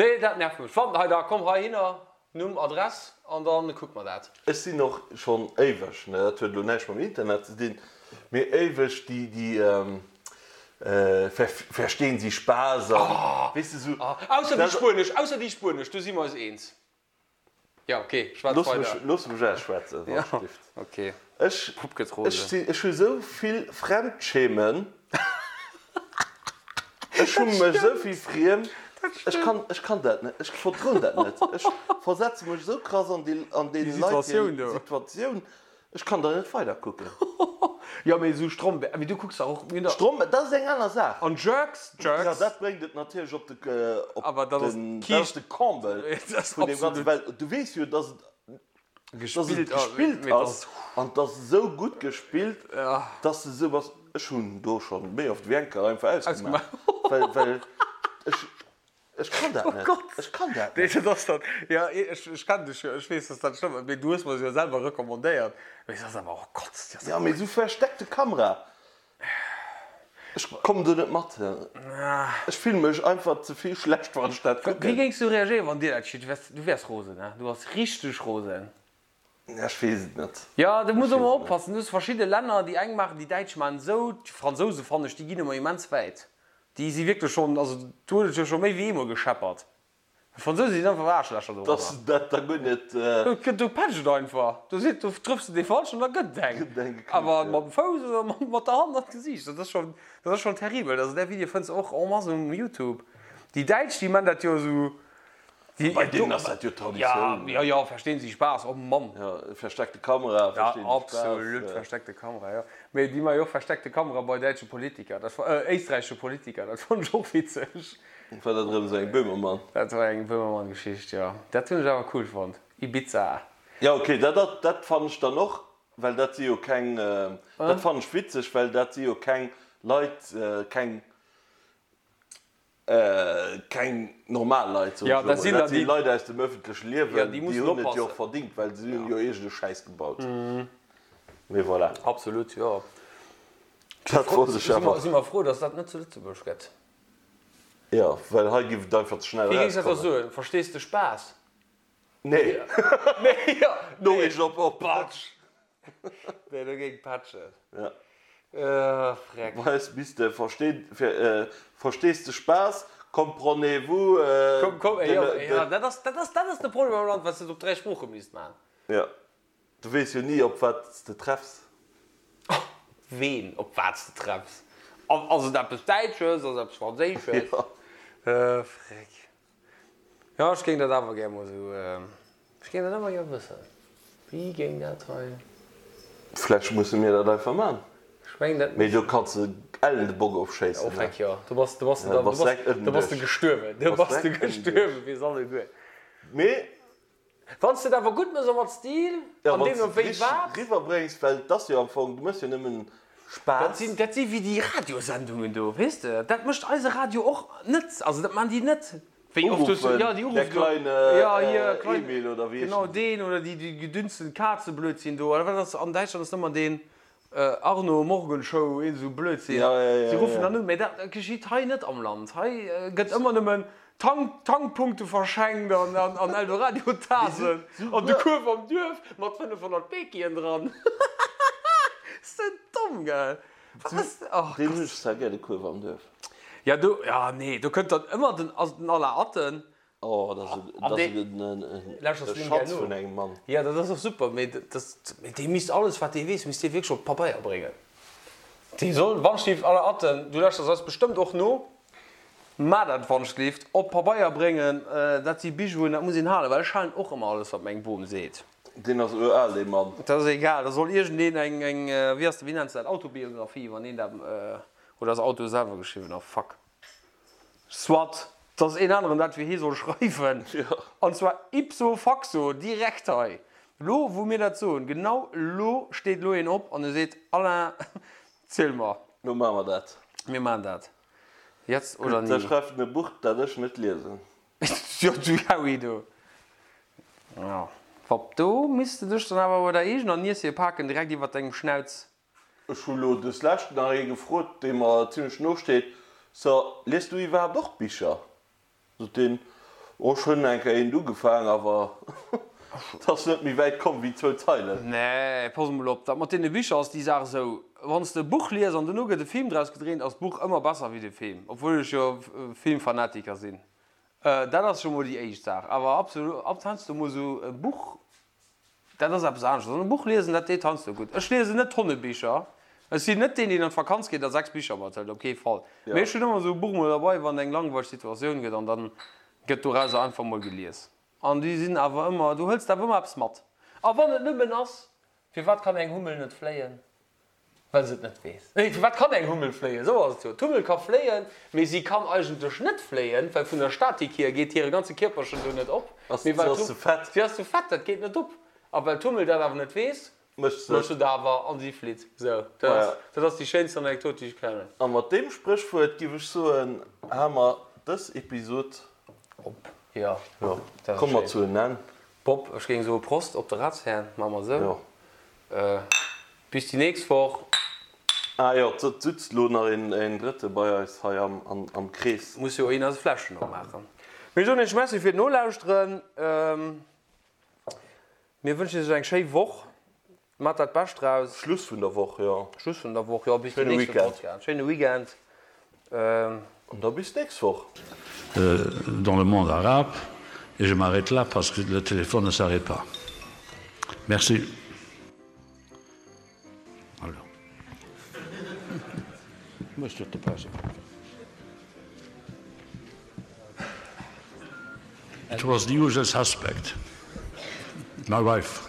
nee, dat nervt mech. Wann, hei da, komm heihinner, Numm, Adress an dann kucke mer dat. Ech sinn och schonn éiweg, ne, dat huet elo näischt mam Internet ze dinn, mee éiweg déi, déi Verstehen Sie Spaß an, weess de, sou. Ausser déi spuenesch, ausser déi spuenesch, do si mer eis eens. Jo, ok, schwätz weider. Looss mech ausschwätzen, wann ech dierft. Ok, Ech, Pupp gëtt rose. ech sinn, ech hu sou vill Fremdschämen. Ech hu mech esou vill friem. Ech kann, ech kann dat net. Ech verdroen dat net. Ech versetze mech esou krass an déi, an deene Leit hir Situatioun. Ech kann da net weider kucken. Jo, mee esou Stromberg, mee du kucks dach och, mir hunn dach. Stromberg, dat ass eng aner Saach. An Jerks, Jerks. Jo, dat bréngt et natierlech op de, op den, dat ass de Comble vun deem Ganzen, well du weess jo, dass et, dass et gespillt ass an et ass esou gutt gespillt, dass de esou bass, ech hunn do schonn méi oft wéi eng Kéier einfach ausgemaach, well, well ech. Ech kann dat net. Ech kann dat net. Nee, dat ass dat. Jo, ech kennen dech jo, ech weess, dass dat schlëmm ass, mee du hues mer se jo selwer recommandéiert. Mee se ass awer, oh Gott, déi ass Jo, mee esou versteckte Kamera. Ech kommen do net mat. Ech fillen mech einfach ze vill schlecht, wann ech dat Wéi kucken. géings du reagéieren, wann dir dat geschitt? Du wäers, du wäers rosen, ne? Du bass richteg rosen. Ech weess et net. Jo, do muss ëmmer oppassen. Du hues verschidde Länner, déi eng maachen, déi Däitsch maachen esou, d'Fransouse fannen ech, déi ginn ëmmer immens wäit. Déi si wierklech schonn, also do huet et jo scho méi wéi eemol gescheppert. D'Fransouse sinn einfach Aarschlächer dorëmmer. Dass se dat da guer net. Do pecht et einfach. Do seet, do trëffs de dee Falschen an da gëtt et eng. Gëtt et eng geknuppt, Awer mat dem Fouss oder mat der Hand an d'Gesiicht, dat ass schonn, dat ass schonn terribel. Also där Video fënns de och en masse um Youtube. Déi Däitsch, déi man dat jo esou. Bei deenen ass dat jo Traditioun. Jo, jo, verstehen Sie Spaß, oh Mann. Jo, versteckte Kamera, verstehen Sie Spaß. Ja, absolut, versteckte Kamera, jo. Mee déi maache jo och versteckte Kamera bei däitsche Politiker, dat, éisträichesche Politiker, dat fonnt ech och witzeg. War dat erëm esou eng Böhmermann? Dat war eng Böhmermann-Geschicht, jo. Dat hunn ech awer cool fonnt. Ibiza. Jo, okay, dat, dat fannen ech dann och, well dat si jo keng, dat fannen ech witzeg, well dat si jo keng Leit, keng Keng normal Leit, soen ech elo mol. Dat si Leit aus dem ëffentleche Liewen, déi hunn et jo och verdingt, well se hunn jo iergend e Schäiss gebaut. Mee voilà. Absolut, jo. Dat wollt ech awer. Si mer frou, datt dat net zu Lëtzebuerg gëtt. Jo, well hei giff et einfach ze schnell Wéi géings dat da erauskommen. soen? Verstees de Spaass? Nee. Nee, jo. Noriicht op op. Patsch. Nee, do géing patschen. Ja. Freck. Bei eis misst de verstehen, fir, verstees de Spaass, comprenez-vous, Komm, komm, de, jo, de. jo, dat ass, dat ass, dat ass de Problem am Land, well s de et op 3 Sprooche misst man. Ja, du weess jo ni, op wat s de treffs. Ween, op wat s de treffs. Ass et eppes Däitsches, ass et eppes Franséisches? Ja. Freck. Jo, ech géing dat awer gär mol esou, ech géing dat awer gär wëssen, wéi géing dat hei. Vläch musse mir dat einfach man. Ech mengen dat. Mee do kanns de ellen de Bock ofschéissen. Oh feck jo, do bass, do bass de dann, do bass, do bass de gestuerwen, do bass de gestuerwen fir s'alleguer. Mee. Wann s de et awer gutt mëss a mat Stil, Ja, an wann s deemno de et wéi richteg wat. riwwerbréngs, well et ass jo am Fong, du mëss jo nëmmen Dat Spaass. sinn, dat si wéi déi Radiosendungen do, weess de. Dat mécht eise Radio och net, also dat maachen déi net. Wéi oft hues du, Uruffen, ja, déi der uruffen do, kleine ja, hier, klein, Emil oder wéi genau heeschen déi? deen oder déi, déi gedünsten Kazeblödsinn do, oder wat ass, an Däitschland ass ëmmer deen Arno Morgenshow, iergend esou Blödsinn. Ja, ja, ja, Si ruffen ja. dann un, mä dat geschitt hei net am Land. Hei gëtt ëmmer nëmmen Tank, Tankpunkte verschenkt an, an, an Eldoradio-Tasen an de Kuerf am Duerf mat 500 Bekien dran. Ass dat domm, gell? Wat ass, oh Deen hunn Gott. ech zwar gär, de Kuerf am Duerf. Ja, do, ja, nee, do kënnt dann ëmmer den, ass den Alain Atten. Oh, dat ass An e, dee, dat ass e Schatz vun engem Mann. Ja, dat ass och super, mee dat, mee dee misst alles, wat dee weess, misst dee wierklech op Pabeier bréngen. Dee soll, Wandschlift, Alain Atten, du lauschters eis bestëmmt och no, Mä dat Wandschlift op Pabeier bréngen, dat si Bijouen, dat muss een halen, well ech halen och ëmmer alles, wat meng Bom seet. Deen ass ural, dee Mann. Dat ass egal, da soll iergendeen eng, eng, wéi ass, wéi nenns de dat, Autobiographie, wann een dat, oder ass Auto selwer geschriwwen, oh fuck. Soit, dass een aneren dat fir hie soll schreiwen, an zwar ipso facto, direkt hei, lo wou mir dat soen, genau lo steet lo een op an e seet, Alain, ziel mer. Lo maache mer dat. Mir maachen dat. Jetzt oder Gutt, da nie. schreift en e Buch, dat ech net liesen. Jo, du Howie, du. Jo, Wapp, do misst de dech dann awer bei der eegener Niess hier paken, direkt iwwert dengem Schnauz. Ech hu lo des Lescht nach ee gefrot, dee mer zimlech no steet, So, liest du iwwerhaapt och Bicher? Sot deen, Oh, ech hunn eng Kéier eent ugefaang, awer et ass net méi wäit komm wéi zwou Zeilen. Nee, pass emol op, dat mat deene Bicher ass déi Saach esou, Wann s de e Buch lies an dono gëtt e Film draus gedréint, ass d'Buch ëmmer besser wéi de Film, obwuel ech jo Filmfanatiker sinn. Dat ass scho mol déi éischt Saach. Awer absolut, ab heiansdo mol esou e Buch, dat ass eppes aneschters. An e Buch liesen, dat deet heiansdo gutt. Ech liesen net tonne Bicher. Ech sinn net deen, deen an d'Vakanz geet a 6 Bicher mathëlt, op kee Fall. Mee ech hunn ëmmer esou e Buch mol derbei, wann eng langweileg Situatioun gëtt, an dann gëtt dorauser einfach mol gelies. An déi sinn awer ëmmer, du hëls awer ëmmer eppes mat. A wann et nëmmen ass, Firwat kann eng Hummel net fléien? Well se et net weess. Nee, firwat kann eng Hummel fléien? Esou ass et jo. D'Hummel ka fléien, mee si kann eigentlech net fléien, well vun der Statik hier geet hire ganze Kierperchen do net op. Ass, si ass ze fett. Si ass ze fett, dat geet net op. A well d'Hummel dat awer net weess, Mécht se mécht se et awer an si flitt. Esou, dat ass, dat ass déi schéinst Anekdot, déi ech kennen. A mat deem Spréchwuert giff ech soen, hale mer dës Episod op. Jo, Jo, dat ass komme mer schéin. zu en Enn. Bob, ech géing soe Prost op de Ratsherrn, maache mer esou. Jo. Bis déi nächst Woch. Ah jo, et sutzt elo nach een Drëtte bei eis hei am Krees. Muss jo een eis Fläschen opmaachen. Mir soen iech Merci fir d'Nolauschteren. Mir wënschen iech eng schéi Woch. Maacht dat Bescht draus. Schluss vun der Woch, jo. Schluss vun der Woch, jo. Bis den Schéine nächste Weekend. Podcast. Schéine Weekend. An da bis d'nächst Woch. Dans le monde arabe et je m'arrête là parce que le téléphone ne s'arrête pas. Merci. Alors. It was the usual suspect, my wife.